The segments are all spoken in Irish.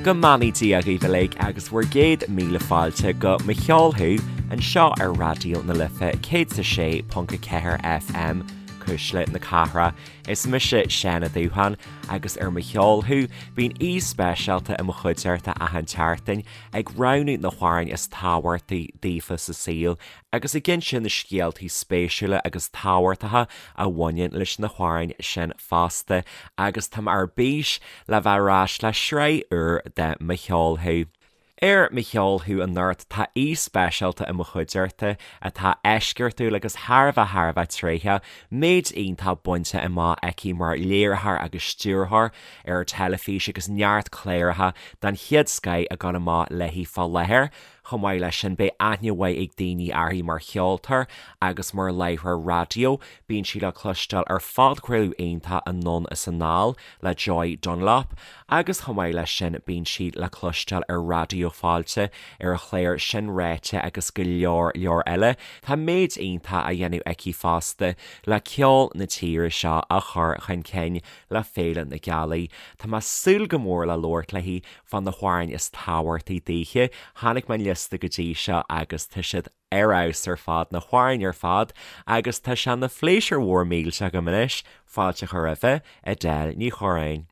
Go mbeannaí Dia dhaoibh uilig agus bhur gcéad míle fáilte go Mo Cheol Thú anseo ar Raidió na Life 106.4 FM, Cuisle na Cathrach. Is mise Seán Ó Dúcháin agus ar Mo Cheol Thú bíonn aoi speisialta i mo chuideachta achan tseachtain ag roghnú na hamhráin is tábhachtaí daofa sa saol agus ag inse na scéaltaí spéisiúla agus tábhachtacha a bhaineann leis na hamhráin sin fosta agus tá mé ar bís le bheith ar ais le sraith úr de Mo Cheol Thú. Ar Mo Cheol Thú anocht tá aoi speisialta i mo chuideachta atá eisceachtúil agus thar a bheith thar a bheith tréitheach, méid iontach bainte amach aici mar léiritheoir agus stiúrthóir ar teilifís agus neart cláracha den chéad scoith ag dul amach léi fá láthair. Chomh maith leis sin, beidh aithne mhaith ag daoine uirthi mar cheoltóir agus mar láithreoir raidió. Bíonn sí le cloisteáil ar phodchraoladh iontach Anonn is Anall le Joy Dunlop agus chomh maith leis sin bíonn sí le cloisteáil ar Raidió Fáilte ar a chlár Sin Ráite agus go leor leor eile. Tá méid iontach á dhéanamh aici fosta le ceol na tíre seo a chur chun cinn le Féile na Gealaí. Tá mé ag súil go mór le labhairt léi fá na hamhráin is tábhachtaí daoithe. Chonaic mé an liosta go dtí seo agus tá siad ar fheabhas ar fad, na hamhráin ar fad, agus tá sé ina phléisiúr mhór millteach agam anois fáilte a chur roimhe, Edel Ní Chorráin.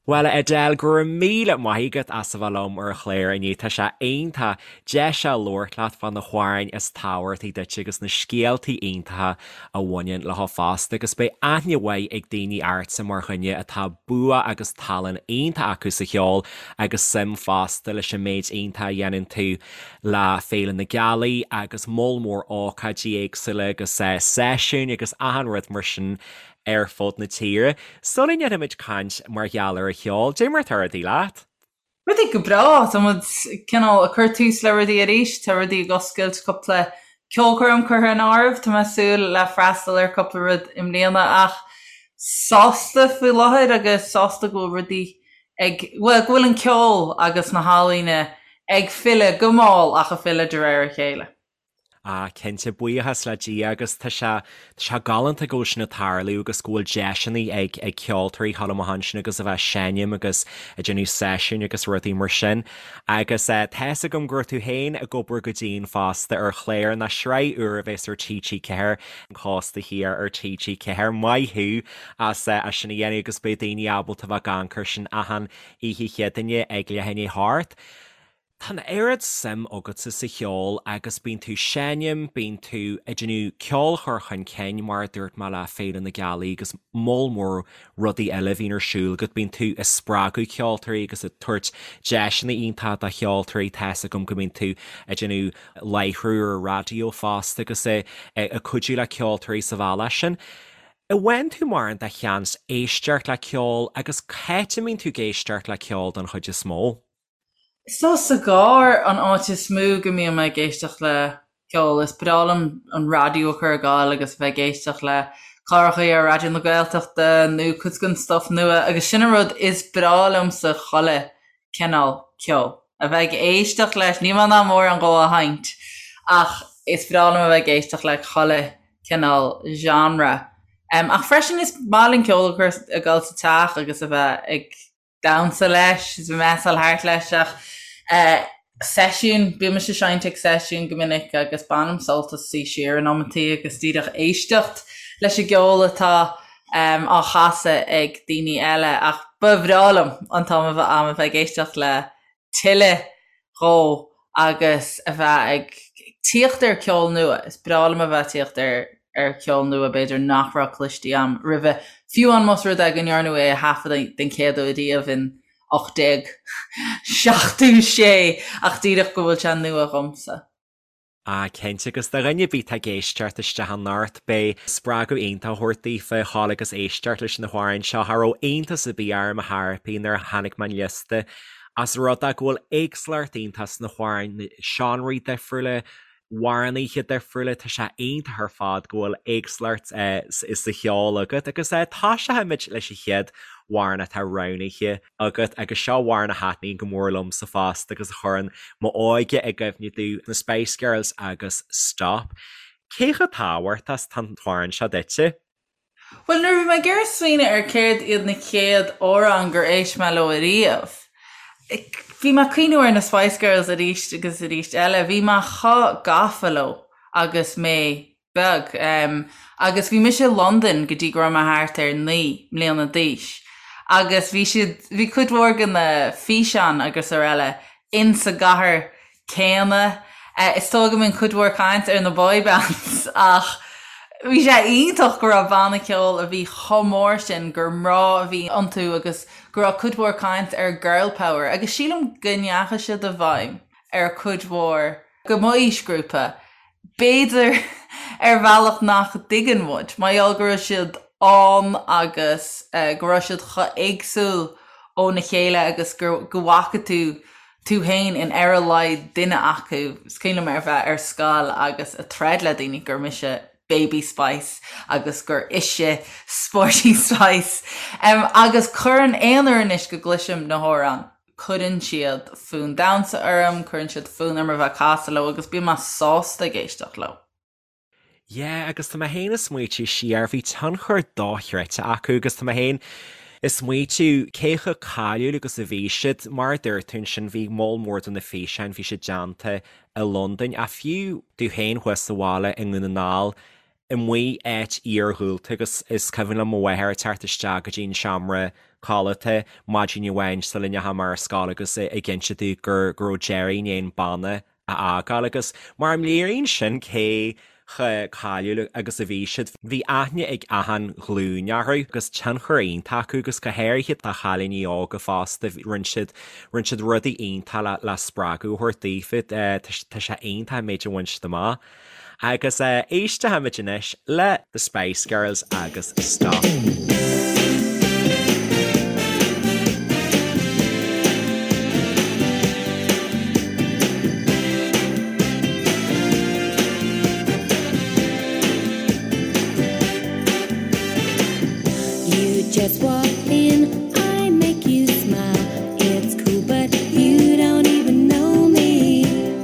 Bhuel, a Edel, go raibh míle maith agat as a bheith liom ar an chlár inniu. Tá sé iontach deis a labhairt leat fá na hamhráin is tábhachtaí duit agus na scéaltaí iontacha a bhaineann leo fosta agus beidh aithne mhaith ag daoine ortsa mar dhuine atá bua agus tallann iontach acu sa cheol agus suim fosta leis an méid iontach a dhéanann tú le Féile na Gealaí agus moll mór ócáidí éagsúla agus seisiúin agus achan rud mar sin ar fud na tíre. Sula ndéanfaimid caint mar gheall ar an cheol, cad é mar atá rudaí leat? Rudaí go breá. Tá muid cineál ag cur tús le rudaí arís. Tá rudaí ag oscailt, cúpla ceolchoirm curtha in áireamh. Tá mé ag súil le freastal ar cúpla rud i mbliana ach sásta faoi láthair agus sásta go bhfuil rudaí ag, bhuel, go bhfuil an ceol agus na healaíona ag filleadh go mall ach ag filleadh de réir a chéile. Ah, cinnte, buíochas le Dia agus tá sé, tá sé galánta go bhfuil sin ag tarlú agus go bhfuil deiseanna ag, ag ceoltóirí dhul amach ansin agus a bheith ag seinm agus ag déanamh seisiúin agus rudaí mar sin. Agus eh, tá fhios agam go raibh tú féin ag obair go dian fosta ar chlár ná sraith úr a bheas ar TG4, An Cósta Thiar ar TG4. Maith thú as eh, as sin a dhéanamh agus beidh daoine ábalta a bheith ag amharc air sin achan oíche Chéadaoine ag leath i ndiaidh a hocht. Tá an oiread suim agatsa sa cheol agus bíonn tú seinm, bíonn tú ag déanamh ceol a chur chun cinn, mar a dúirt mé le Féile na Gealaí agus moll mór rudaí eile a bhíonn ar siúl agat, bíonn tú ag spreagadh ceoltóirí agus ag tabhairt deiseanna iontacha do cheoltóirí, tá fhios agam go mbíonn tú ag déanamh láithriú ar an raidió fosta agus ag cuidiú le ceoltóirí sa bhealach sin. An bhfaigheann tú mórán de sheans éisteacht le ceol agus cá háit a mbíonn tú ag éisteacht le ceol don chuid is mó? Is dóigh sa gcarr an áit is mó go mbíonn mé ag éisteacht le ceol. Is breá liom an raidió a chur ag gabháil agus a bheith ag éisteacht le cláracha ar Raidió na Gaeltachta nó cuid den stuif nua agus sin an rud is breá liomsa chuile cineál ceoil. A bheith ag éisteacht leis, níl mé in ann mórán dhó a sheinnt ach is breá liom a bheith ag éisteacht le chuile cineál genre. Ach freisin is maith linn ceol a chur ag gabháil sa teach agus a bheith ag damhsa leis, is measáil thart leis ach seisiún, bímse ag seinnt ag seisiún go minic agus bainim sult as suí siar in amantaí agus díreach éisteacht leis an gceol atá á chasadh ag daoine eile ach ba bhreá liom an t-am a bheith a'm a bheith ag éisteacht le tuilleadh dhó agus a bheith ag tíocht ar ceol nua. Is breá liom a bheith ag tíocht ar ar cheol nua b'fhéidir nach raibh cloiste a'm roimhe, fiú amháin más rud é go ndearnadh é a thaifeadadh den chéad uair riamh in 1876 ach díreach go bhfuil sé nua dhomsa. Ah, cinnte, agus do dhuine ar bith atá ag éisteacht isteach anocht, beidh spreagadh iontach á thabhairt daofa dhul agus éisteacht leis na hamhráin seo. Cha raibh iontas ar bith orm ar chor ar bith nuair a chonaic mé an liosta, as rud é go bhfuil éagsúlacht iontach sna hamhráin, na seánraí difriúla, amhránaithe difriúla, tá sé iontach ar fad go bhfuil éagsúlacht sa cheol agat agus tosóimid leis an chéad amhrán atá roghnaithe agat agus seo amhrán a thaitníonn go mór liomsa fosta agus a chuireann m'óige i gcuimhne domh, na Spice Girls agus Stop. Cé chomh tábhachtach is atá an t-amhrán seo duitse? Bhuel, nuair a bhí mé ag iarraidh smaoineamh ar céard iad na chéad amhráin gur éist mé leo ariamh, Bhí mé ag cuimhniú ar na Spice Girls arís agus arís eile. Bhí mé chomh gafa leo agus mé beag. Agus bhí mise i Londain go dtí go raibh mé thart ar 9 mbliana d'aois. Agus bhí siad, bhí cuid mhór de na físeáin agus araile insa gcathair céanna. Is dóigh go mbíonn cuid mhór caint ar na boy bands ach bhí sé iontach go raibh banna ceoil a bhí chomh mór sin gur mná a bhí iontu agus go raibh cuid mhór caint ar girl power agus sílim go ndeachaigh siad i bhfeidhm ar cuid mhór de m'aoisghrúpa, b'fhéidir ar bhealach nach dtuigeann muid, mar gheall go raibh siad ann agus go raibh siad chomh éagsúil óna chéile agus go bhfaca tú tú féin in ar a laghad duine acu. Is cuimhin liom ar bheith ar scoil agus a troid le daoine gur mise Baby Spice agus gur ise Sporty Spice. Agus cuireann aon uair anois go gcloisim na hamhráin, cuireann siad fonn damhsa orm, cuireann siad fonn orm a bheith ag casadh leo agus bíonn mé sásta ag éisteacht leo. Yeah, agus tá mé féin ag smaoitiú siar, bhí tionchar dochreidte acu agus tá mé féin ag smaoitiú cé chomh cáiliúil agus a bhí siad. Mar a dúirt tú ansin, bhí moll mór de na físeáin, bhí siad déanta i Londain, ach fiú tú féin thuas sa bhaile i nDún na nGall, amuigh áit iarghúlta agus is cuimhin liom mo mháthair ag teacht isteach go dtí an seomra codlata maidin amháin sula ndeachaigh mé ar scoil agus ag inse domh go raibh Gerry i ndiaidh an banna a fhágáil agus mar a léiríonn sin cé chomh cáiliúil agus a bhí siad, bhí aithne ag achan ghlúin orthu agus tionchar iontach acu agus go háirithe do chailíní óga fosta, rinne siad, rinne siad rudaí iontach le, le spreagadh a thabhairt daofa, tá sé iontach an méid a bhain siad amach. Agus éistfimid anois le The Spice Girls agus Stop. You just walk in, I make you smile. It's cool, but you don't even know me.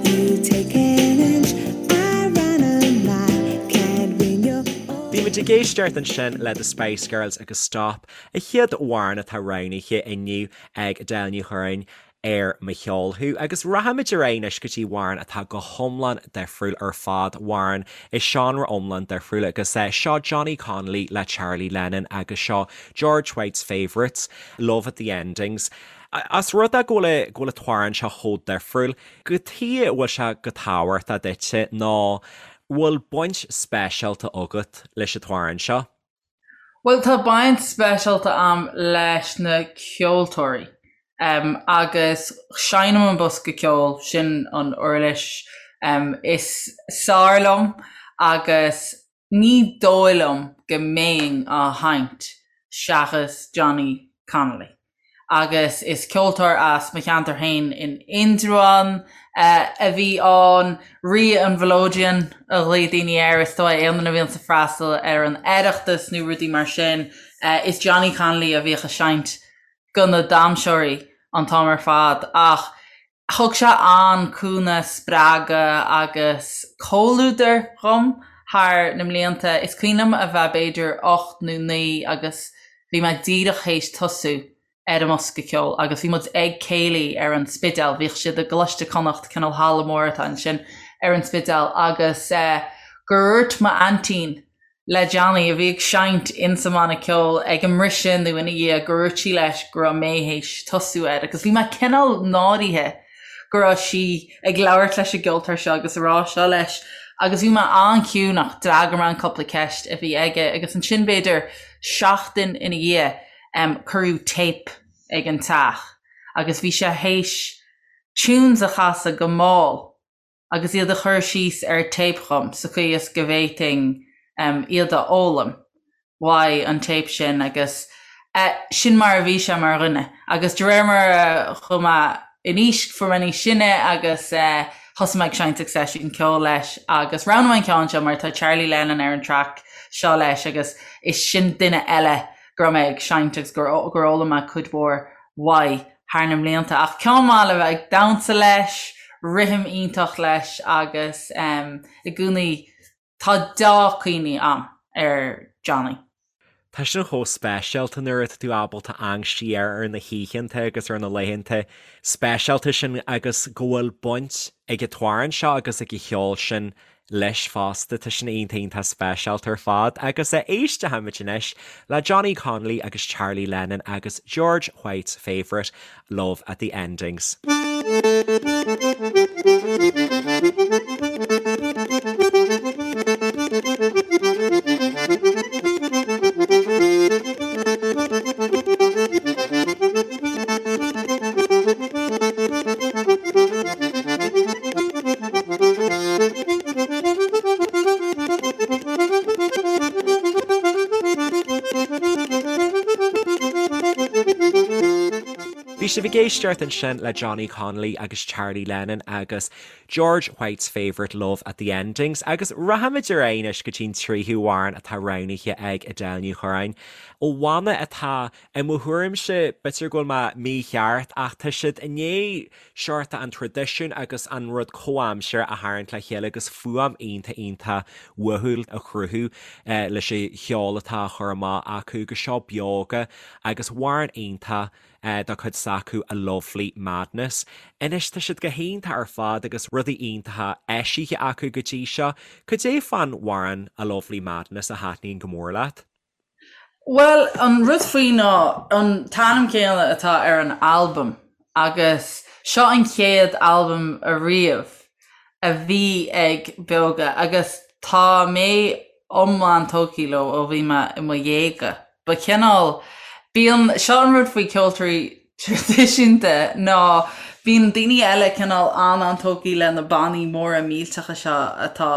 You take an inch, I run a mile. Can't win your Bhí muid ag éisteacht ansin le The Spice Girls agus Stop, an chéad amhrán atá roghnaithe inniu ag Edel Ní Churráin ar Mo Cheol Thú. Agus rachaimid ar aghaidh anois go dtí amhrán atá go hiomlán difriúil ar fad, amhrán i seánra iomlán difriúil agus seo Johnny Connolly le Charlie Lennon agus seo George White's Favourites, Love at the Endings. As rud é go bhfuil go bhfuil an t-amhrán seo chomh difriúil, cad chuige a bhfuil sé chomh tábhachtach duitse nó bhfuil baint speisialta agat leis an t-amhrán seo? Bhuel, tá baint speisialta a'm leis na ceoltóirí agus seinnim an bosca ceoil, sin an uirlis is fearr liom agus ní dóigh liom go mbeinn á sheinnt seachas Johnny Connolly. agus is ceoltóir as mo cheantar féin in Indreabhán a bhí ann. Rí an Mhelodeon a ghlaoigh daoine air, is dóigh, aon duine a bhíonns ag freastal ar an Oireachtas nó rudaí mar sin. Is Johnny Connolly a bhíodh ag seinnt go na damhsóirí an t-am ar fad ach Thug sé an-cúnamh, spreagadh agus comhluadar dhom thar na mblianta. Is cuimhin liom a bheith b'fhéidir 8 nó 9 agus bhí mé díreach théis tosú ar an mbosca ceoil agus bhí muid ag céilí ar an Spidéal, bhíodh siad i gColáiste Chonnacht, cineál halla mór atá ansin ar an Spidéal agus gur dhúirt m'aintín le Johnny, a bhí ag seinnt insa mbanna ceoil ag an mbriseadh nó ina dhiaidh, gur dhúirt sí leis go raibh mé théis tosú air agus bhí mé cineál náirithe go raibh sí ag labhairt leis an gceoltóir seo agus a rá seo leis agus bhí mé an-chiúin ach d'fhreagair mé an cúpla ceist a bhí aige agus ansin b'fhéidir seachtain ina dhiaidh cuireadh téip ag an teach agus bhí sé théis tunes a chasadh go mall agus iad a chur síos ar téip dhom sa chaoi is go bhféadfainn iad a fhoghlaim uaidh an téip sin agus sin mar a bhí sé mar dhuine. Agus de réir mar a chuaigh mé in aois, fuair mé níos sine agus thosaigh mé ag seinnt ag seisiún ceoil leis agus roghnaigh mé an ceann seo mar tá Charlie Lennon ar an traic seo leis agus is sin duine eile go raibh mé ag seinnt agus gur fhoghlaim mé cuid mhór uaidh thar na mblianta. Ach ceann maith le bheith ag damhsa leis, rithim iontach leis agus i gcónaí tá deá-chuimhní a'm ar Johnny. Tá sin chomh speisialta nuair atá tú ábalta amharc siar ar na hoícheanta agus ar na laethanta speisialta sin agus go bhfuil baint ag an t-amhrán seo agus ag an cheol sin leis fosta. Tá sin iontach iontach speisialta ar fad. Agus éistfimid anois le Johnny Connolly agus Charlie Lennon agus George White's Favourite, Love at the Endings. Bhí sibh ag éisteacht ansin le Johnny Connolly agus Charlie Lennon agus George White's Favourite Love at the Endings agus rachaimid ar aghaidh anois go dtí an tríú hamhrán atá roghnaithe ag Edel Ní Churráin ó bhanna atá I mo thuairimse, b'fhéidir go bhfuil mé mícheart, ach tá siad i ndiaidh seort an traidisiún agus an rud comhaimseartha a tharraingt le chéile agus fuaim iontach iontach uathúil a chruthú leis an cheol atá á chur amach acu agus seo Beoga agus amhrán iontach dá cuid s'acu A Lovely Madness. Anois tá siad go hiontach ar fad agus rudaí iontacha eisithe acu go dtí seo. Cad é fán amhrán A Lovely Madness a thaitníonn go mór leat? Bhuel, an rud faoi ná an t-ainm céanna atá ar an albam agus seo an chéad albam ariamh a bhí ag Beoga agus tá mé iomlán tógtha leo ó bhí mé i mo dhéaga. Ba chineál, bíonn, seo an rud faoi ceoltóirí traidisiúnta ná bíonn daoine eile cineál an-an-tógtha le na bannaí móra millteacha seo atá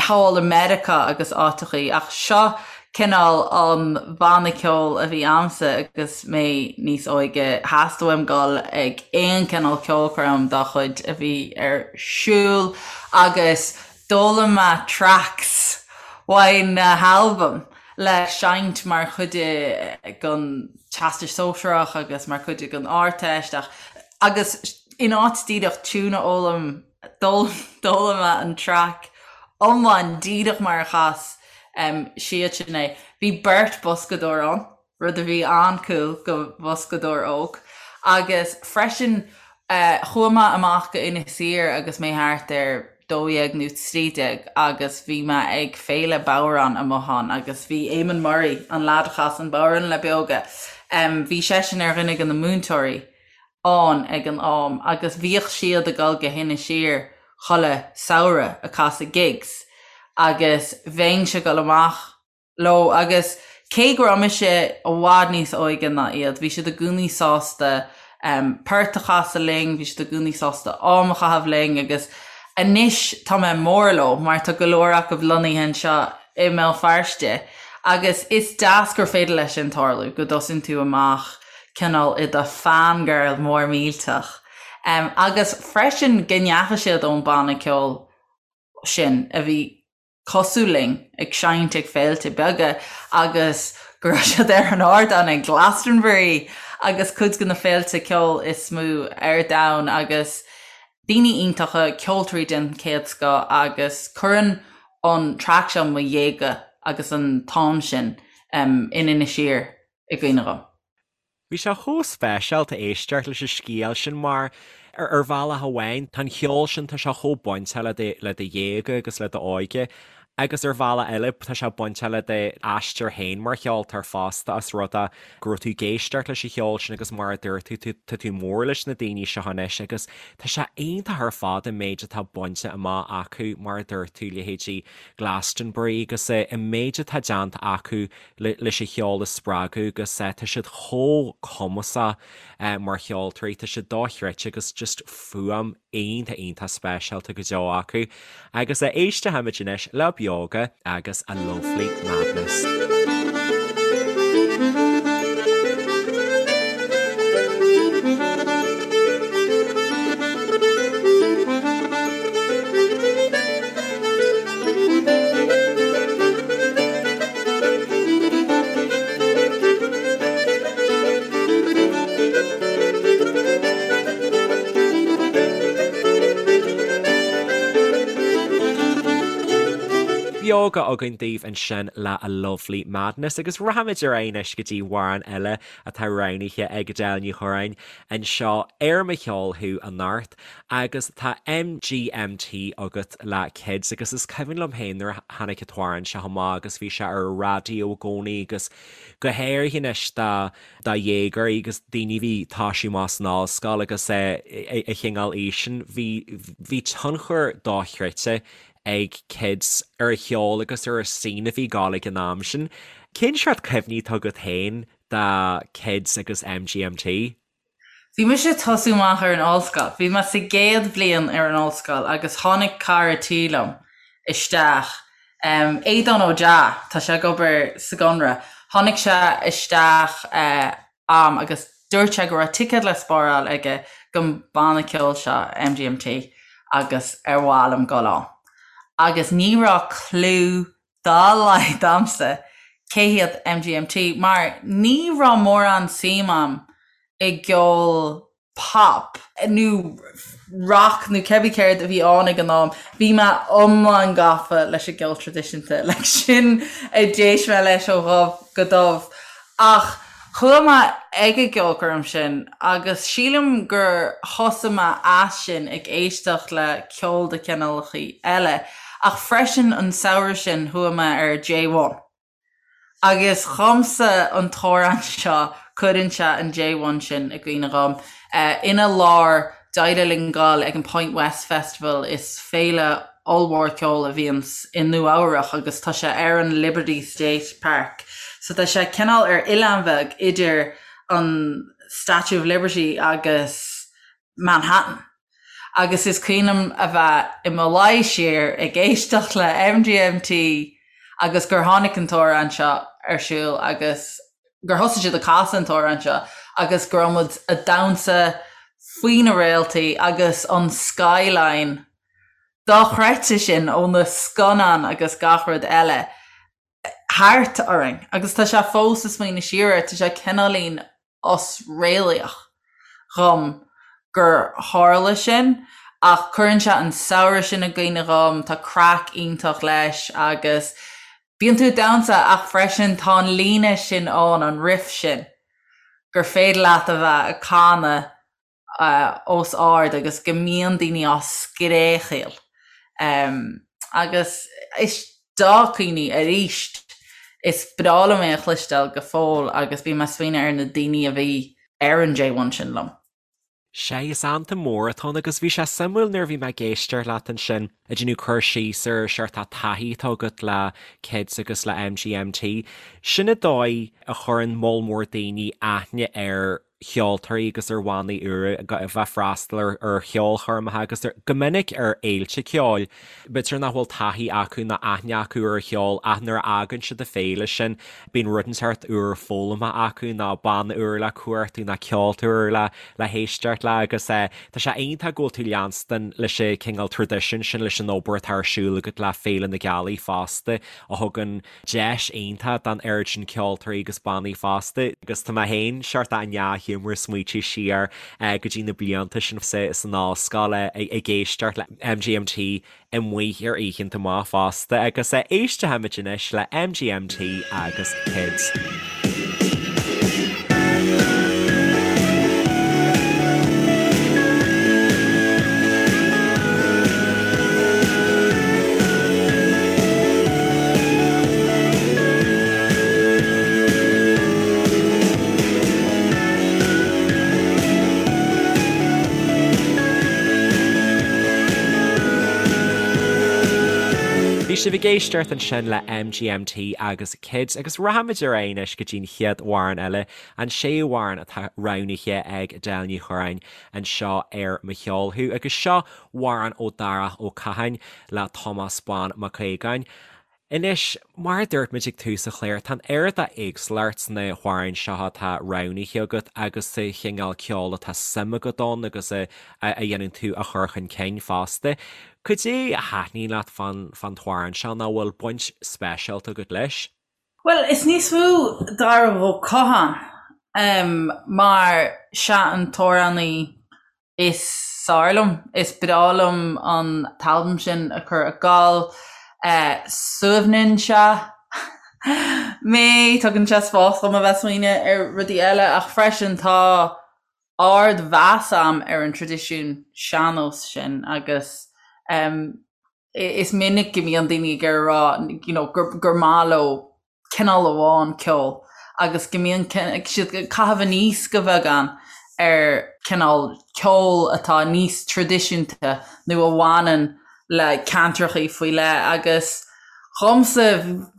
thall i Meiriceá agus áiteachaí, ach seo cineál an banna ceoil a bhí a'msa agus mé níos óige. Theastaigh uaim dul ag aon cineál ceolchoirm dá chuid a bhí ar siúl agus d'fhoghlaim mé tracks uaidh na halbaim le seinnt mar chuid den Teastas Sóisearach agus mar chuid den Ardteist ach agus in áit díreach tiún a fhoghlaim D'fhoghlaim mé an traic iomlán díreach mar a chas siadsan é. Bhí beirt boscadóir ann, rud a bhí an-cool do bhoscadóir óg. Agus freisin chuaigh mé amach go Inis Oírr agus mé thart ar 12 nó 13 agus bhí mé ag féile bodhrán amuigh ann agus bhí Eamon Murray, an leaid a chas an bodhrán le Beoga, bhí seisean ar dhuine de na múinteoirí. ann ag an am agus bhíodh siad ag dul go hInis Oírr chuile samhradh ag casadh gigs agus bheinnse ag dul amach leo agus cé go raibh mise i bhfad níos óige ná iad bhí siad i gcónaí sásta port a chasadh linn, bhí siad i gcónaí sásta am a chaitheamh linn agus anois tá mé mór leo mar tá go leor acu lonnaithe anseo i mBéal Feirste agus is deas gur féidir leis sin tarlú, go dtosaíonn tú amach cineál i do fangirl mór millteach. Agus freisin go ndeachaigh siad ón banna ceoil sin a bhí cosúil linn ag seinnt ag féilte beaga agus go raibh siad ar an ardán ag Glastonbury agus cuid de na féilte ceoil is mó ar domhan agus daoine iontacha, ceoltóirí den chéad scoth agus cuireann an traic seo mo dhéaga agus an t-am sin in Inis Oírr i gcuimhne dhom. Bhí sé chomh speisialta éisteacht leis an scéal sin mar, ar bhealach amháin, tá an cheol sin, tá sé chomh bainteach le do, le do dhéaga agus le d'óige agus ar bhealach eile tá sé bainteach le d'aistear féin mar cheoltóir fosta as rud é go raibh tú ag éisteacht leis an cheol sin agus mar a dúirt tú, tú, tá tú mór leis na daoine seo anois agus tá sé iontach ar fad an méid atá bainte amach acu mar a dúirt tú, leithéidí Glastonbury agus an méid atá déanta acu leis an cheol a spreagadh agus tá siad chomh cumasach mar cheoltóirí, tá siad dochreidte agus just fuaim iontach iontach speisialta go deo acu. Agus éistfimid anois le Beoga agus A Lovely Madness. Bhí Beoga againn daoibh ansin le A Lovely Madness agus rachaimid ar aghaidh anois go dtí amhrán eile atá roghnaithe ag Edel Ní Churráin anseo ar Mo Cheol Thú anocht agus tá MGMT agat le Kids agus is cuimhin liom féin nuair a tháinig an t-amhrán seo amach agus bhí sé ar an raidió i gcónaí agus go háirithe anois do do dhéagóirí agus daoine a bhí ag toisiú amach san ollscoil agus an chineál aois sin bhí bhí tionchar dochreidte ag Kids ar an cheol agus ar an scene a bhí ag gabháil ag an am sin. Cén seort cuimhní atá agat féin de Kids agus MGMT? Bhí mise ag tosú amach ar an ollscoil. Bhí mé sa gcéad bhliain ar an ollscoil agus tháinig cara tí liom isteach, Aodán Ó Deá, tá sé ag obair sa gConradh, tháinig sé isteach a'm agus dúirt sé go raibh ticéad le spáráil aige don banna ceoil seo, MGMT, agus ar mhaith liom dul ann. Agus ní raibh clue dá laghad a'msa cé hiad MGMT mar ní raibh mórán suim a'm i gceol pop nó rock nó cébí céard a bhí ann ag an am, bhí mé iomlán gafa leis an gceol traidisiúnta, like sin a d'éist mé leis ó dhubh go dubh. Ach chuaigh mé ag an gceolchoirm sin agus sílim gur thosaigh mé as sin ag éisteacht le ceol de chineálacha eile ach freisin an samhradh sin chuaigh mé ar J1. Agus dhomsa an t-amhrán seo, cuireann sé an J1 sin i gcuimhne dhom. Ina lár, d'éirigh linn dul ag an Point West Festival, is féile ollmhór ceoil a bhíonns i Nua Eabhrach agus tá sé ar an Liberty State Park. So tá sé cineál ar oileán bheag idir an Statue of Liberty agus Manhattan. Agus is cuimhin liom a bheith i mo luí siar ag éisteacht le MGMT agus gur tháinig an t-amhrán seo ar siúl agus gur thosaigh siad ag casadh an t-amhrán seo agus go raibh muid ag damhsa faoi na réaltaí agus an skyline dochreidte sin ó na scannáin agus gach rud eile thart orainn agus tá sé fós ag smaoineamh siar air, tá sé cineáilín osréalaíoch dhom gur tharla sin ach cuireann sé an samhradh sin i gcuimhne dhom, tá craic iontach leis agus bíonn tú ag damhsa ach freisin tá an líne sin ann, an riff sin, gur féidir leat a bheith ag canadh os ard agus go mbíonn daoine á scréachaíl. Agus is dea-chuimhní arís. Is breá liom é a chloisteáil go fóill agus bím ag smaoineamh ar na daoine a bhí ar an J1 sin liom. Sea, is anthem mór atá ann agus bhí sé suimiúil nuair a bhí mé ag éisteacht leat ansin ag déanamh cur síos ar seort taithí atá agat le Kids agus le MGMT. Sin an dóigh a chuireann moll mór daoine aithne ar cheoltóirí agus ar bhannaí úra a bheith ag freastal ar cheolchoirmeacha agus go minic ar fhéilte ceoil. B'fhéidir nach bhfuil taithí acu ná aithne acu ar an cheol ach nuair a fhágann siad an féile sin bíonn rud inteacht úr foghlamtha acu nó banna úr le cuartú nó ceoltóir úr le le héisteacht le agus tá sé iontach go bhfuil tú leanstan leis an cineál traidisiún sin leis an obair atá ar siúl agat le Féile na Gealaí fosta a thugann deis iontach don oiread sin ceoltóirí agus bannaí fosta agus tá mé féin seort i ndea-ghiúmar ag smaoitiú siar go dtí na blianta sin san ollscoil ag éisteacht le MGMT amuigh ar oícheanta maith fosta agus éistfimid anois le MGMT agus Kids. Bhí sibh ag éisteacht ansin le MGMT agus Kids agus rachaimid ar aghaidh anois go dtí'n chéad amhrán eile, an séú amhrán atá roghnaithe ag Edel Ní Churráin anseo ar Mo Cheol Thú agus seo amhrán ó Darach Ó Catháin le Tomás Bán Mac Aogáin. Anois, mar a dúirt muid ag tús an chláir, tá an oiread d'éagsúlacht sna hamhráin seo atá roghnaithe agat agus sa chineál ceoil atá suim agat ann agus a dhéanann tú a chur chun cinn fosta. Cad é a thaitníonn leat fán t-amhrán seo nó an bhfuil baint speisialta agat leis? Bhuel, is níos mó Darach Ó Catháin mar sea an t-amhránaí is fearr liom. Is breá liom an t-albam sin a chur ag gabháil. Suaimhníonn sé mé, tugann sé spás dom a bheith ag smaoineamh ar rudaí eile ach freisin tá ardmheas a'm ar an traidisiún sean-nós sin agus is minic go mbíonn daoine ag iarraidh a rá you know gur maith leo cineál amháin ceoil agus go mbíonn siad ag caitheamh aníos go beagán ar cineál ceoil atá níos traidisiúnta nó a bhaineann le ceantrachaí faoi leith agus dhomsa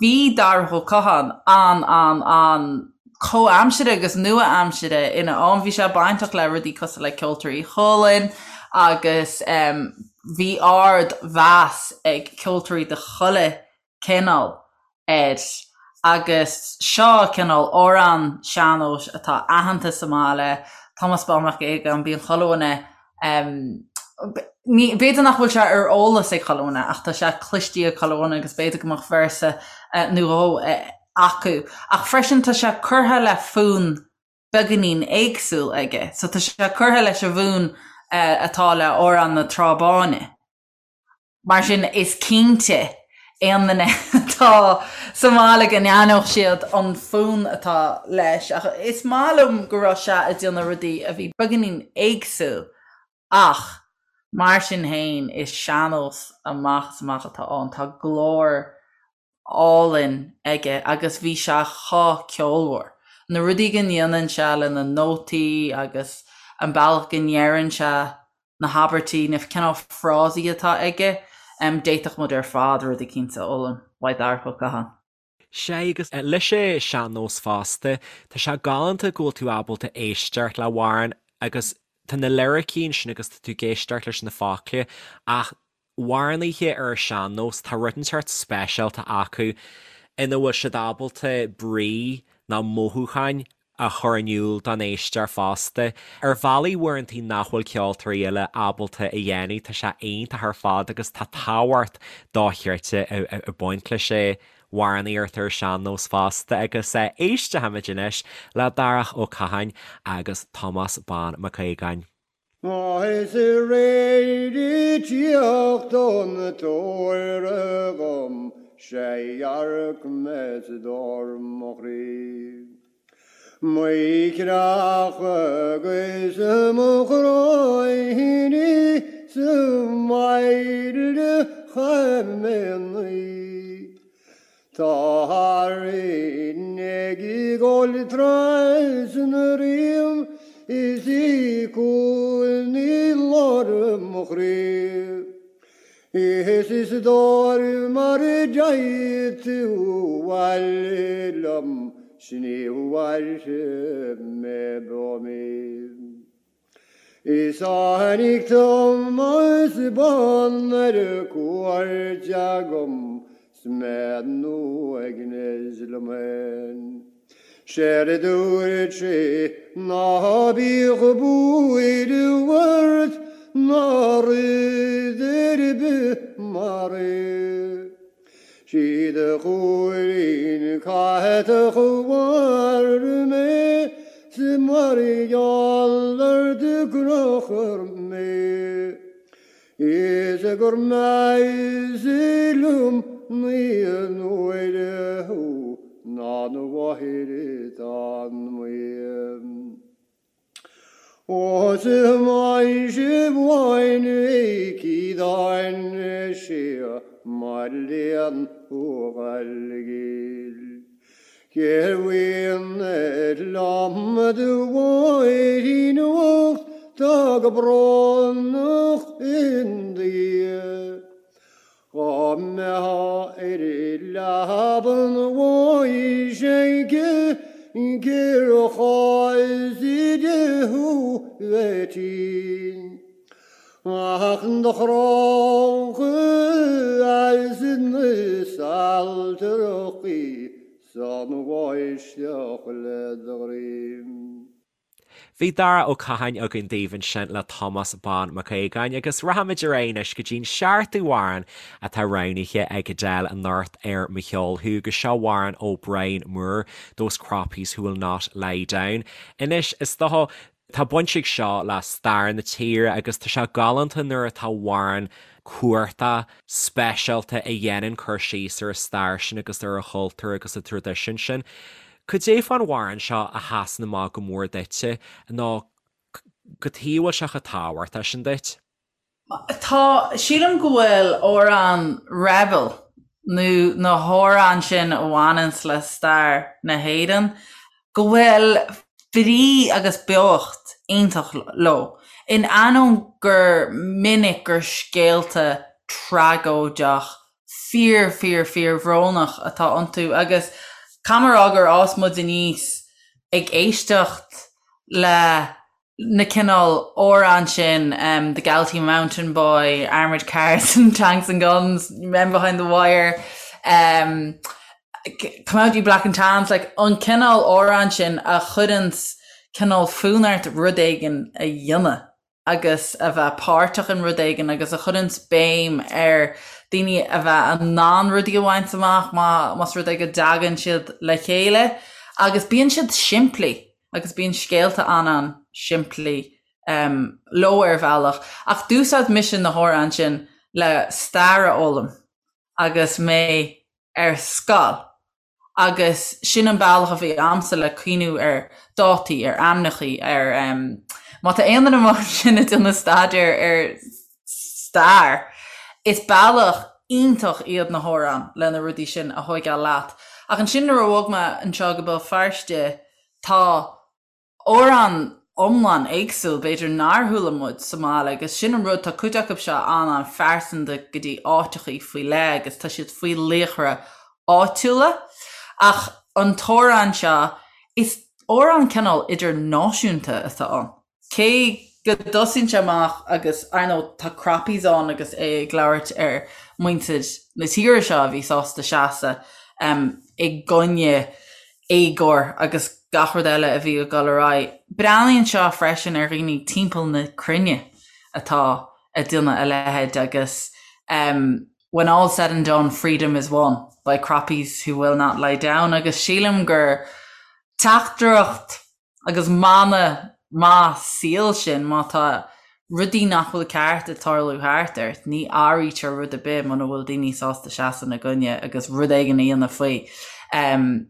bhí Darach Ó Catháin an an an comhaimseartha agus nua-aimseartha ina am. Bhí sé bainteach le rudaí cosúil le Ceoltóirí Chualann agus bhí ard mheas ag ceoltóirí de chuile cineál air agus seo cineál amhrán sean-nóis atá aitheanta sa mbaile, Tomás Bán Mac Aodhagáin, bíonn chuile dhuine, ní, b'fhéidir nach bhfuil sé ar eolas ag chuile dhuine ach tá sé cloiste ag chuile dhuine agus b'fhéidir go mbeadh véarsa nó dhó acu. Ach freisin tá sé curtha le fonn beagáinín éagsúil aige. So tá sé curtha leis an bhfonn atá le Amhrán na Trá Báine. Mar sin is cinnte aon duine atá sa mbaile go n-aithneodh siad an fonn atá leis. Ach is maith liom go raibh sé ag déanamh rudaí a bhí beagáinín éagsúil ach mar sin féin is sean-nós amach is amach atá ann. Tá glór álainn aige agus bhí sé chomh ceolmhar. Na rudaí go ndéanann sé le na nótaí agus an bealach go ndeireann sé na habairtí, na cineál frásaí atá aige, d'fhéadfadh muid ar fad rud eicínt a fhoghlaim uaidh Darach Ó Catháin. Sea, agus leis an sean-nós fosta, tá sé galánta go bhfuil tú ábalta éisteacht le hamhrán agus tá na liricí ansin agus tá tú ag éisteacht leis na focla ach amhránaithe ar an sean-nós, tá rud inteacht speisialta acu ina bhfuil siad ábalta brí nó mothúcháin a chur in iúl don éisteoir fosta, ar bhealaí uaireantaí nach bhfuil ceoltóirí eile ábalta a dhéanamh. Tá sé iontach ar fad agus tá tábhacht dochreidte ag baint leis an amhránaíocht ar an sean-nós fosta agus éistfimid anois le Darach Ó Catháin agus Tomás Bán Mac Aodhagáin. Is aréir ag tíocht ón tóir agam 'sé dhearc mé 's dor mo chroí. Mo chreach agus mo chroí sa mbaile chaimíní. Tá rinn ag gol trasna riam is í cúil lár mo chroí. Is is dóir mar a d'fhéadfadh tú abhaile liom 's ní mhairfidh mé beo mí. Is tháinig Tomás Bán ar cuairt agam 's mé in uaigneas liom féin. 'Séard a dúirt sé ná bíodh buaireamh ort ná rud ar bith mar é. 'Sí do chúilín catach a mharaigh mé 's mar gheall ort a crochadh mé. Is gur measa liom naoi n-uaire thú ná do mháthair atá amuigh. Ó sa mhaise bháin cídáin sé mar léan ó Ghaillimh. Cér bhfuil ar liom do mháithrín ucht tá go brónach in do dhiaidh. Dhá mbeifeá ar leaba an bháis aici cér chás di thú bheith tinn. Ach do chrochadh as na saltarachaí 's an bháisteach le do dhroim. Bhí Dara Ó Catháin againn daoibh ansin le Tomás Bán Mac Aodhagáin agus rachaimid ar aghaidh anois go dtí'n seachtú amhrán atá roghnaithe ag Edel anocht ar Mo Cheol Thú agus seo amhrán ó Brian Moore, Those Croppies Who Will Not Lie Down. Anois, is dócha, tá baint ag seo le stair na tíre agus tá sé galánta nuair atá amhrán. cumhachtach speisialta a dhéanann cur síos ar an stair sin agus ar an chultúr agus an traidisiún sin. Cad é fán amhrán seo a sheasann amach go mór duitse nó cad chuige a bhfuil sé chomh tábhachtach sin duit? Tá, sílim go bhfuil amhrán rebel nó na hamhráin sin a bhaineanns le stair na hÉireann, go bhfuil brí agus beocht iontach leo, in ainneoin gur minic gur scéalta tragóideach fíor fíor fíor bhrónach atá iontu agus caithfidh mé a rá gur fhás muid aníos ag éisteacht le na cineál amhrán sin, The Galtee Mountain Boy, Armoured Cars and Tanks and Guns, Men Behind the Wire, Come Out You Black and Tans, like an cineál amhrán sin a chuireanns cineál fonn ort rud éigin a dhéanamh agus a bheith páirteach in rud éigin agus a chuireanns béim ar daoine a bheith in ann rudaí a bhaint amach más rud é go dtagann siad le chéile agus bíonn siad simplí. agus bíonn scéalta an-an-simplí leo ar bhealach, ach d'úsáid mise na hamhráin sin le stair a fhoghlaim agus mé ar scoil agus sin an bealach a bhí a'msa le cuimhniú ar dátaí, ar ainmneachaí, ar má tá aon duine amuigh ansin ag déanamh staidéar ar stair, is bealach iontach iad na hamhráin le na rudaí sin a thóigeáil leat. Ach ansin nuair a bhog mé anseo go Béal Feirste, Tá amhráin iomlán éagsúil, b'fhéidir nár chuala muid sa mbaile agus sin an rud, tá cuid acu seo an-an-phearsanta go dtí áiteachaí faoi leith agus tá siad faoi laochra áitiúla. Ach an t-amhrán seo, is amhrán cineál idirnáisiúnta atá ann. Cé go dtosaíonn sé amach agus, ar ndóigh, tá Croppies ann agus é ag labhairt ar muintir na tíre seo a bhí sásta seasamh i gcoinne éagóir agus gach rud eile a bhí ag dul ar aghaidh. Breathnaíonn seo freisin ar dhaoine timpeall na cruinne atá ag déanamh a leithéid agus When all said and done, freedom is won by Croppies who will not lie down agus sílim gur teachtaireacht Agus mana maith saoil sin, má tá rudaí nach bhfuil ceart ag tarlú thart ort, ní athraítear rud ar bith muna bhfuil daoine sásta seasamh ina gcoinne agus rud éigin a dhéanamh faoi.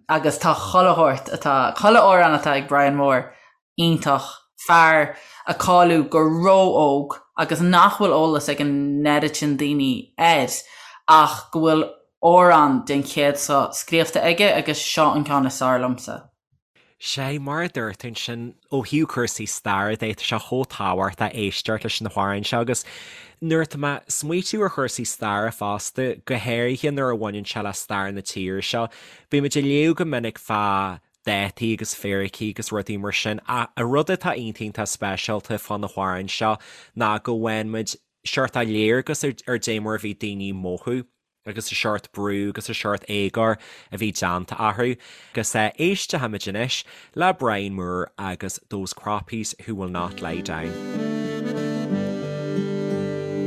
Agus tá chuile shórt atá, chuile amhrán atá ag Brian Moore iontach, fear a cailleadh go ró-óg agus nach bhfuil eolas ag an oiread sin daoine air ach go bhfuil amhráin den chéad scoth scríofa aige agus seo an ceann is fearr liomsa. Sea, mar a dúirt tú ansin, ó thaobh cúrsaí staire de, tá sé chomh tábhachtach éisteacht leis na hamhráin seo agus nuair atá mé ag smaoitiú ar chúrsaí staire fosta, go háirithe nuair a bhaineann sé le stair na tíre seo, bímid ag léamh go minic fá dátaí agus fíricí agus rudaí mar sin ach an rud atá iontach iontach speisialta fá na hamhráin seo ná go bhfaigheann muid seort léargas ar dé mar a bhí daoine ag mothú. agus an seort brú agus an seort éagóir a bhí déanta orthu. Agus éistfimid anois le Brian Moore agus Those Croppies Who Will Not Lie Down.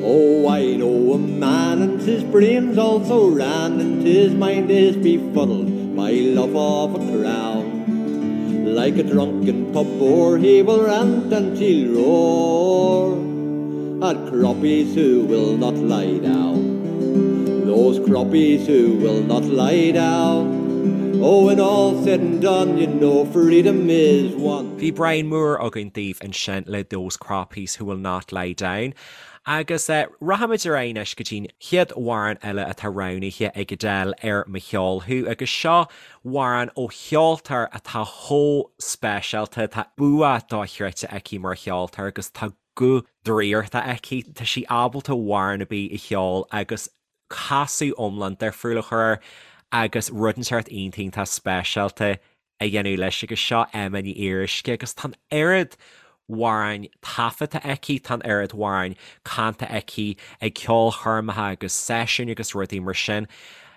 Oh, I know a man and his brain's all so round and his mind is befuddled by love of a crown. Like a drunken pub boar he will rant and he'll roar. At croppies who will not lie down. Those croppies who will not lie down. Oh, when all's said and done, you know freedom is won. Bhí Brian Moore againn daoibh ansin le Those Croppies Who Will Not Lie Down. Agus rachaimid ar aghaidh anois go dtí'n chéad amhrán eile atá roghnaithe ag Edel ar Mo Cheol Thú agus seo amhrán ó cheoltóir atá chomh speisialta, tá bua dochreidte aici mar cheoltóir agus tá guth draíochta aici. Tá sí ábalta amhrán ar bith a cheol agus casadh iomlán difriúil a chur air agus rud inteacht iontach iontach speisialta a dhéanamh leis agus seo Emma Ní Fhíoruisce agus tá an oiread amhráin taifeadta aici, tá an oiread amhráin canta aici ag ceolchoirmeacha agus seisiúin agus rudaí mar sin.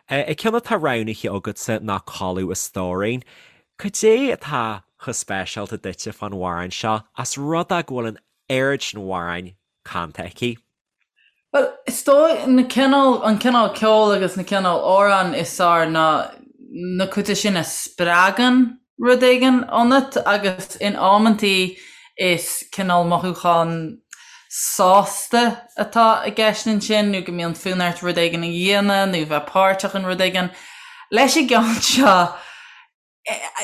An ceann atá roghnaithe agatsa ná Codladh a Stóirín. Cad é atá chomh speisialta duitse fán amhrán seo, ós rud é go bhfuil an oiread sin amhráin canta aici? Bhuel, is dóigh, na cineál, an cineál ceoil agus na cineál amhrán is fearr ná na cuid sin a spreagann rud éigin ionat agus in amantaí is cineál mothúchán. sásta atá i gceist ansin nó go mbíonn fonn ort rud éigin a dhéanamh nó bheith páirteach in rud éigin. Leis an gceann seo,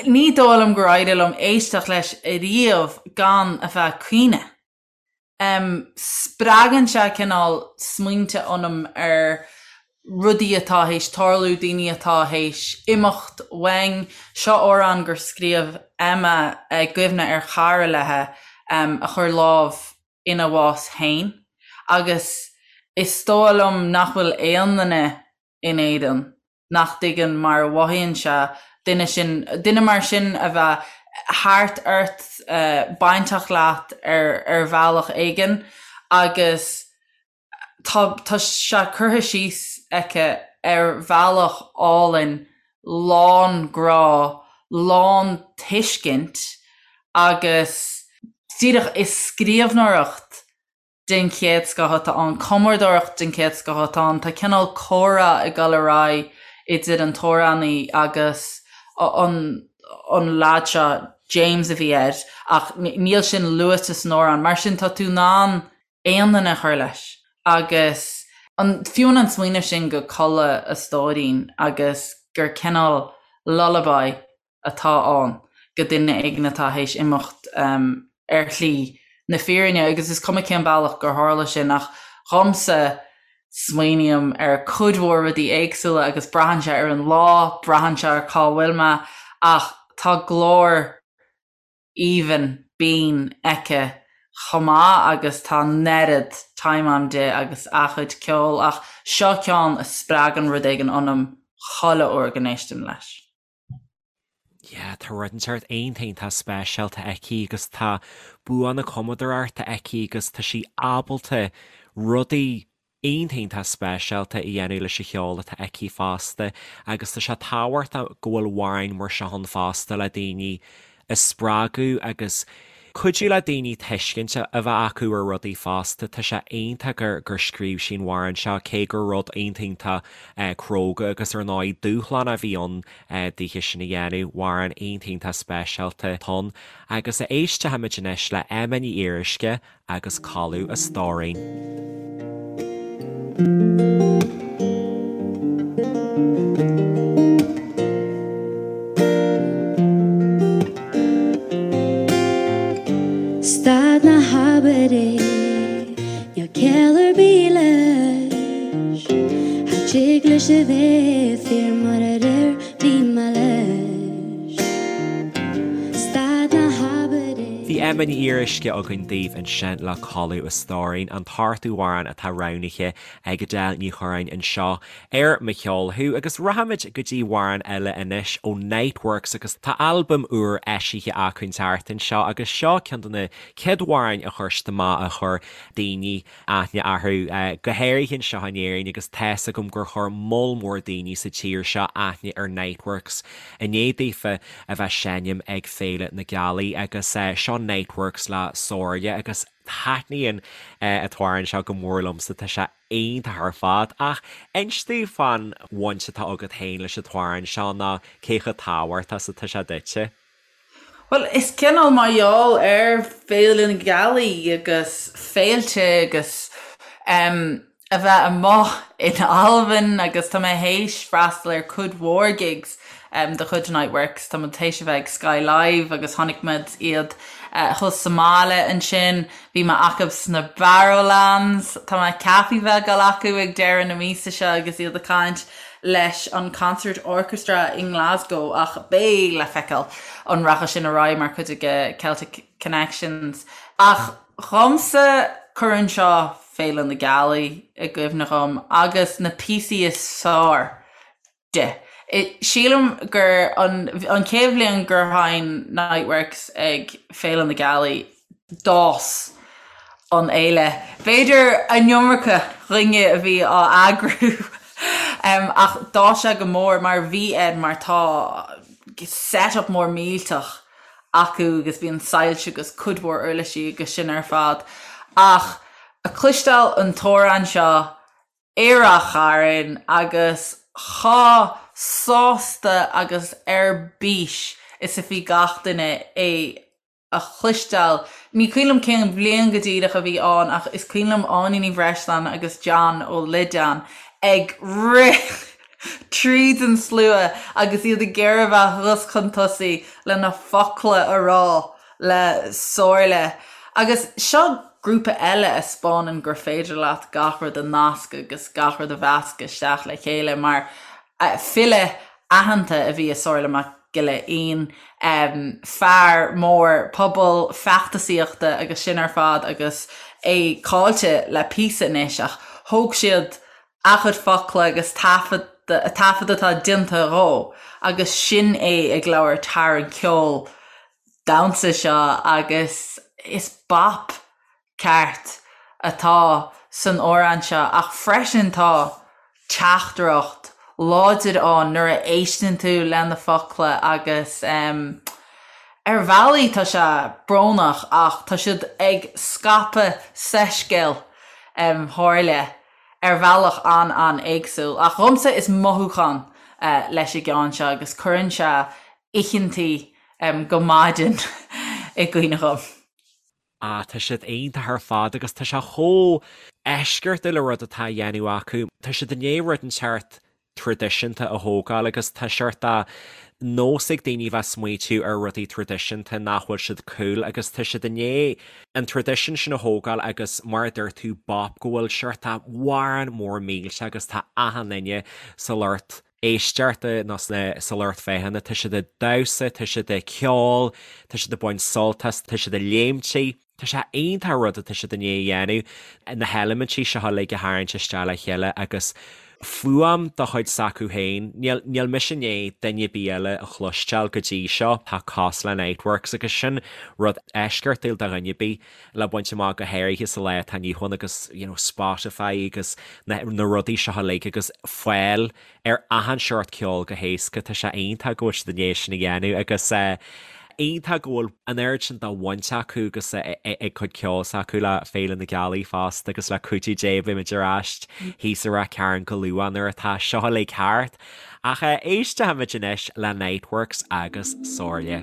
ní dóigh liom gur éirigh liom éisteacht leis ariamh gan a bheith ag caoineadh. Spreagann sé cineál smaointe ionam ar rudaí atá théis tarlú, daoine atá théis imeacht uainn. Seo amhrán gur scríobh Emma i gcuimhne ar chara léi a chuir lámh ina bhás féin agus is dóigh liom nach bhfuil aon duine in Éirinn nach dtuigeann mar a mhothaíonn sé duine sin, duine mar sin a bheith thart ort, bainteach leat ar ar bhealach éigin agus tá tá sé curtha síos aici ar bhealach álainn, lán grá, lán tuiscint agus díreach is scríbhneoireacht den chéad scoth atá ann, cumadóireacht den chéad scoth atá ann. Tá cineál comhrá ag dul ar aghaidh idir an t-amhránaí agus an an leaid seo, James a bhí air, ach níl sin luaite san amhrán. Mar sin tá tú in ann aon duine a chur leis agus an fiú an smaoineamh sin go codladh a stóirín agus gur cineál lullaby atá ann go duine éigin atá théis imeacht ar shlí na fírinne agus is cuma cén bealach gur tharla sin ach dhomsa smaoiním ar cuid mhór rudaí éagsúla agus braitheann sé ar an lá, braitheann sé ar cá bhfuil mé ach tá glór aoibhinn binn aici chomh maith agus tá an oiread time a'm di agus a cuid ceoil ach seo ceann a spreagann rud éigin ionam chuile uair go n-éistim leis. Yeah, tá rud inteacht iontach iontach speisialta aici agus tá bua na cumadóireachta aici agus tá sí ábalta rudaí iontach iontach speisialta a dhéanamh leis an cheol atá aici fosta agus tá sé tábhachtach go bhfuil amhráin mar seo ann fosta le daoine a spreagadh agus cuidiú le daoine tuiscint a bheith acu ar rudaí fosta. Tá sé iontach gur gur scríobh sí an amhrán seo, cé gur rud iontach iontach cróga agus ar ndóigh dúshlánach a bhí ann daoithe sin a dhéanamh. Amhrán iontach iontach speisialta atá ann. Agus éistfimid anois le Emma Ní Fhíoruisce agus Codladh a Stóirín. Stad ná habair é, níl ciall ar bith leis. Cha dtig leis a bheith fíor mar aréir bhí mé leis. Stad ná habair é. Bhí Emma Ní Fhíoruisce againn daoibh ansin le Codladh a Stóirín, an t-ochtú amhrán atá roghnaithe ag Edel Ní Churráin anseo ar Mo Cheol Thú. Agus rachaimid go dtí amhrán eile anois ó Niteworks agus tá albam úr eisithe acu an tseachtain seo agus seo ceann de na chéad amhráin a chuir siad amach a chuir daoine aithne orthu, go háirithe anseo in Éirinn agus tá's agam gur chuir moll mór daoine sa tír seo aithne ar Niteworks i ndiaidh daofa a bheith seinm ag Féile na Gealaí agus seo Niteworks le Somhairle agus taitníonn an t-amhrán seo go mór liomsa, tá sé iontach ar fad. Ach inis domh fán bhaint atá agat féin leis an t-amhrán seo nó cé chomh tábhachtach is atá sé duitse. Bhuel, is cineál mar gheall ar Féile na Gealaí agus féilte agus em a bheith amuigh in Albain agus tá mé théis freastal ar cuid mhór gigs em de chuid Niteworks. Tá muid théis a bheith ag Sky Live agus chonaic muid iad eh thuas sa mbaile ansin. Bhí mé acu sna Barrowlands. Tá mé ceaptha bheith ag dul acu ag deireadh na míosa seo agus iad ag caint leis an Concert Orchestra i nGlasgow ach beidh le feiceáil an rachaidh sin ar aghaidh mar chuid de Celtic Connections. Ach dhomsa cuireann seo Féile na Gealaí i gcuimhne dhom agus na píosaí is fearr de. Sílim gur an an chéad bhliain gur sheinn Niteworks ag Féile na Gealaí, d'fhás an fhéile. B'fhéidir an iomarca dhuine a bhí á eagrú ach d'fhás sé go mór mar bhí air mar tá set up mór millteach acu agus bíonn soilse agus cuid mhór uirlisí agus sin ar fad. Ach a cloisteáil an t-amhrán seo i Ráth Chairn agus chomh sásta agus ar bís is a bhí gach duine é. A chloisteáil. Ní cuimhin liom cén bhliain go díreach a bhí ann ach is cuimhin liom Áine Ní Bhreisleáin agus John Ó Loideáin ag rith tríd an slua agus iad ag iarraidh a bheith thuas chun tosaigh le na focla a rá le Somhairle. Agus seo grúpa eile a 'spáineann gur féidir leat gach rud a nascadh agus gach rud a mheascadh isteach le chéile mar file aitheanta a bhí i Somhairle Mac Giolla Fhinn, fear mór pobail, feachtasaíochta agus sin ar fad agus é caillte le píosa anois ach thóg siad a chuid focla agus taifead taifead atá déanta dhó agus sin é ag labhairt thar an ceol damhsa seo agus is bap ceart atá san amhrán seo ach freisin tá teachtaireacht láidir ann nuair a éisteann tú le na focla agus ar bhealaí tá sé brónach ach tá siad ag scaipeadh soiscéal Shomhairle ar bhealach an-an-éagsúil. Ach dhomsa is mothúchán leis an gceann seo agus cuireann sé oícheantaí go maidin i gcuimhne dhom. Ah, tá siad iontach ar fad agus tá sé chomh eisceachtúil an rud atá á dhéanamh acu. Tá siad i ndiaidh rud inteacht traidisiúnta a thógáil agus tá seort de nós ag daoine bheith smaoitiú ar rudaí traidisiúnta nach bhfuil siad cool agus tá siad i ndiaidh an traidisiún sin a thógáil agus mar a dúirt tú bop go bhfuil seort de amhrán mór millteach agus tá achan duine sa lucht éisteachta nó sa lucht féachana, tá siad ag damhsa, tá siad ag ceol, tá siad ag baint sult as, tá siad ag léimtigh. Tá sé iontach an rud atá siad i ndiaidh a dhéanamh, na heilimintí seo uilig a tharraingt isteach le chéile agus fuaim de chuid s'acu féin. Níl, níl mise i ndiaidh duine ar bith eile a chloisteáil go dtí seo atá cosúil le Niteworks agus sin rud eisceachtúil do dhuine ar bith le baint amach go háirithe sa lá atá inniu ann agus you know Spotify agus na na rudaí seo uilig agus fáil ar achan seort ceoil go héasca tá sé iontach go bhfuil siad i ndiaidh sin a dhéanamh agus eh iontach go bhfuil an oiread sin de bhaint acu agus ag cuid ceoil s'acu le Féile na Gealaí fosta agus le cuidiú Dé beimid ar ais thíos i Ráth Cairn go luath nuair atá seo uilig thart. Ach éistfimid anois le Niteworks agus Somhairle.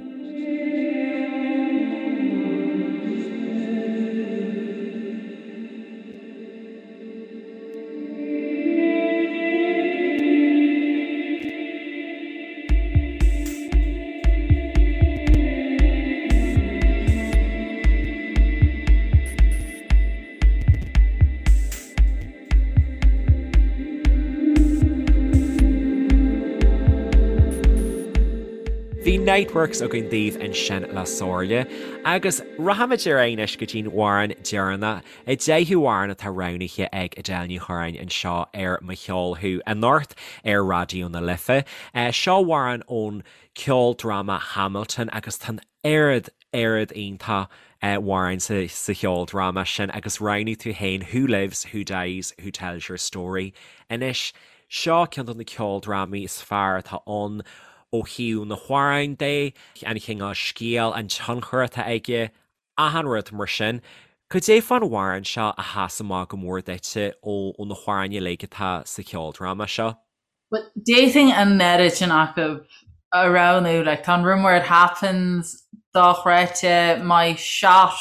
Bhí Niteworks againn daoibh ansin le Somhairle agus rachaimid ar aghaidh anois go dtí'n amhrán deireanach, an deichiú amhrán atá roghnaithe ag Edel Ní Churráin anseo ar Mo Cheol Thú anocht ar Raidió na Life. Seo amhrán ón ceoldráma Hamilton agus tá an oiread, oiread iontach amhráin sa cheoldráma sin agus roghnaigh tú féin Who Lives, Who Dies, Who Tells Your Story. Anois, seo ceann de na ceoldrámaí is fearr atá ann ó thaobh na hamhráin de, an chineál scéil, an tionchar atá aige, achan rud mar sin. Cad é fán amhrán seo a sheas amach go mór duitse ó na hamhráin uilig atá sa cheoldráma seo? Bhuel, d'fhéadfainn an oiread sin acu a roghnú, like, tá an Room Where It Happens dochreidte, My Shot,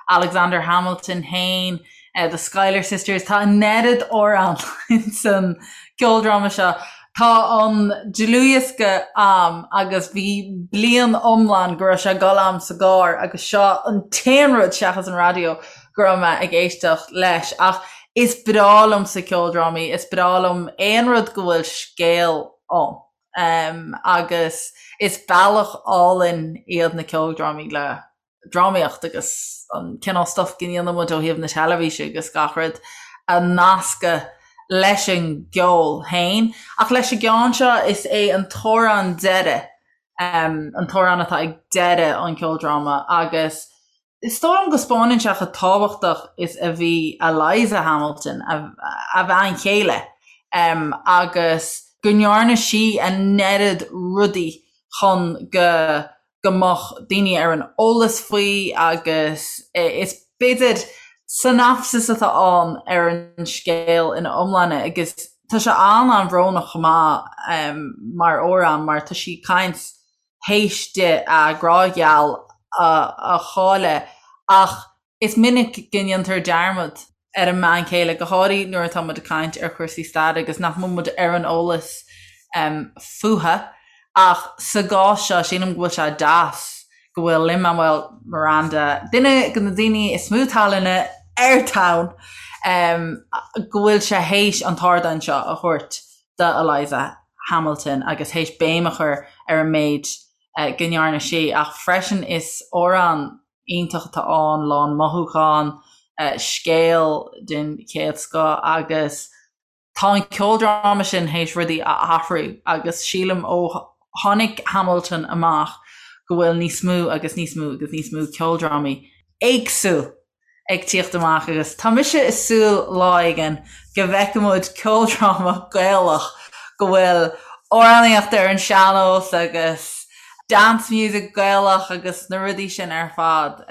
Alexander Hamilton féin, The Schuyler Sisters, tá an oiread amhrán ins an ceoldráma seo. Tá an dlúthdhiosca a'm agus bhí bliain iomlán go raibh sé ag dul a'm sa gcarr agus seo an t-aon rud seachas an raidió go raibh mé ag éisteacht leis. Ach is breá liomsa ceoldrámaí, is breá liom aon rud go bhfuil scéal ann. Agus is bealach álainn iad na ceoldrámaí le drámaíocht agus an cineál stuff go ndéanann muid ó thaobh na teilifíse agus gach rud a nascadh leis an gceol féin. Ach leis an gceann seo is é an t-amhrán deiridh, an t-amhrán atá ag deireadh an cheoldráma agus is dóigh liom go spáineann sé chomh tábhachtach is a bhí Eliza Hamilton, a bhean chéile, agus go ndearna sí an oiread rudaí chun go go mbeadh daoine ar an eolas faoi agus is b'fhéidir synopsis atá ann ar an scéal ina iomláine agus tá sé an-an-bhrónach chomh maith mar amhrán mar tá sí ag caint théis di a grá gheal. a chailleadh ach is minic go ndéantar dearmad ar an mbean chéile, go háirithe nuair atá muid ag caint ar chúrsaí staire agus nach mbíonn muid ar an eolas fúthu. Ach sa gcás seo, sílim go bhfuil sé deas go bhfuil Lin-Manuel Miranda, duine de na daoine is mó tallainne ar domhan, go bhfuil sé théis an t-ardán seo a thabhairt do Eliza Hamilton agus théis béim a chur ar an méid go ndearna sí. Ach freisin is amhrán iontach atá ann, lán mothúchán, scéal den chéad scoth agus tá an ceoldráma sin théis rudaí a athrú agus sílim ó tháinig Hamilton amach go bhfuil níos mó agus níos mó agus níos mó ceoldrámaí éagsúil ag tíocht amach agus tá mise ag súil lá éigin go bhfeicfidh muid ceoldráma Gaelach go bhfuil amhránaíocht ar an sean-nós agus dance music Gaelach agus na rudaí sin ar fad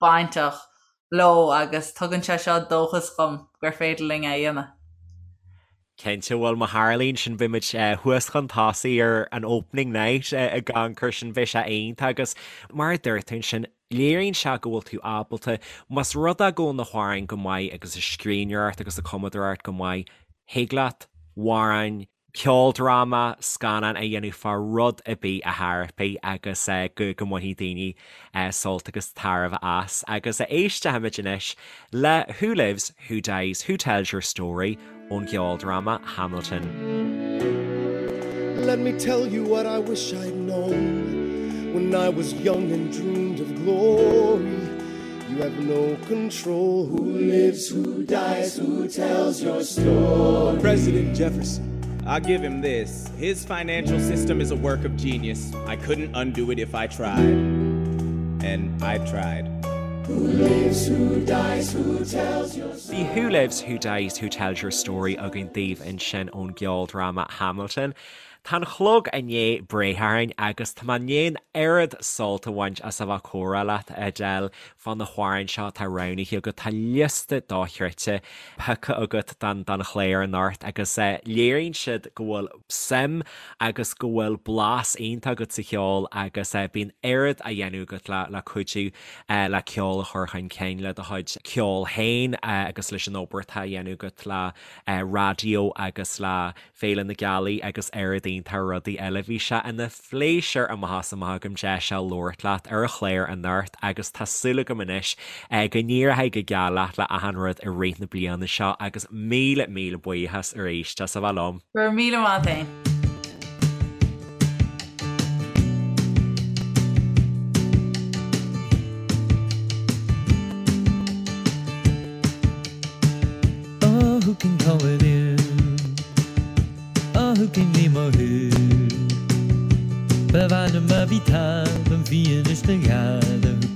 bainteach leo agus tugann sé seo dóchas dhom gur féidir linn é a dhéanamh. Cinnte, bhuel má tharlaíonn sin beidh muid thuas chun tosaigh ar an opening night ag amharc air sin, beidh sé iontach agus mar a dúirt tú ansin, léiríonn sé go bhfuil tú ábalta, más rud é go bhfuil na hamhráin go maith agus an scríbhneoireacht agus an cumadóireacht go maith, thig leat amhráin, ceoldráma, scannán a dhéanamh fá rud ar bith a thairfidh agus go go mbainfidh daoine sult agus tairbhe as. Agus éistfimid anois le Who Lives, Who Dies, Who Tells Your Story ón gceoldráma Hamilton. Let me tell you what I wish I'd known when I was young and dreamed of glory. You have no control who lives, who dies, who tells your story. President Jefferson. I'll give him this. His financial system is a work of genius. I couldn't undo it if I tried. And I tried. Who lives, who dies, who tells your Bhí Who Lives, Who Dies, Who Tells Your Story againn daoibh ansin ón gceoldráma Hamilton. Tá an clog i ndiaidh breith orainn agus tá mé i ndiaidh an oiread sult a bhaint as a bheith ag comhrá leat, a Edel, fá na hamhráin seo atá roghnaithe agat. Tá liosta dochreidte pioctha agat don don chlár anocht agus léiríonn siad go bhfuil suim agus go bhfuil blas iontach agat sa cheol agus bíonn oiread á dhéanamh agat le le cuidiú le ceol a chur chun cinn, le do chuid ceoil féin agus leis an obair atá á dhéanamh agat le raidió agus le Féile na Gealaí agus oiread iontach rudaí eile. Bhí sé ina phléisiúr amach is amach agam deis a labhairt leat ar an chlár anocht agus tá súil agam anois go n-éireoidh go geal leat le achan rud i rith na bliana seo agus míle míle buíochas arís as a bheith liom. Go raibh míle maith agat féin. Oh, who can call it in? Oh, who can name a who? Ba mhaith liom a bhí talamh bhí anois na gheala.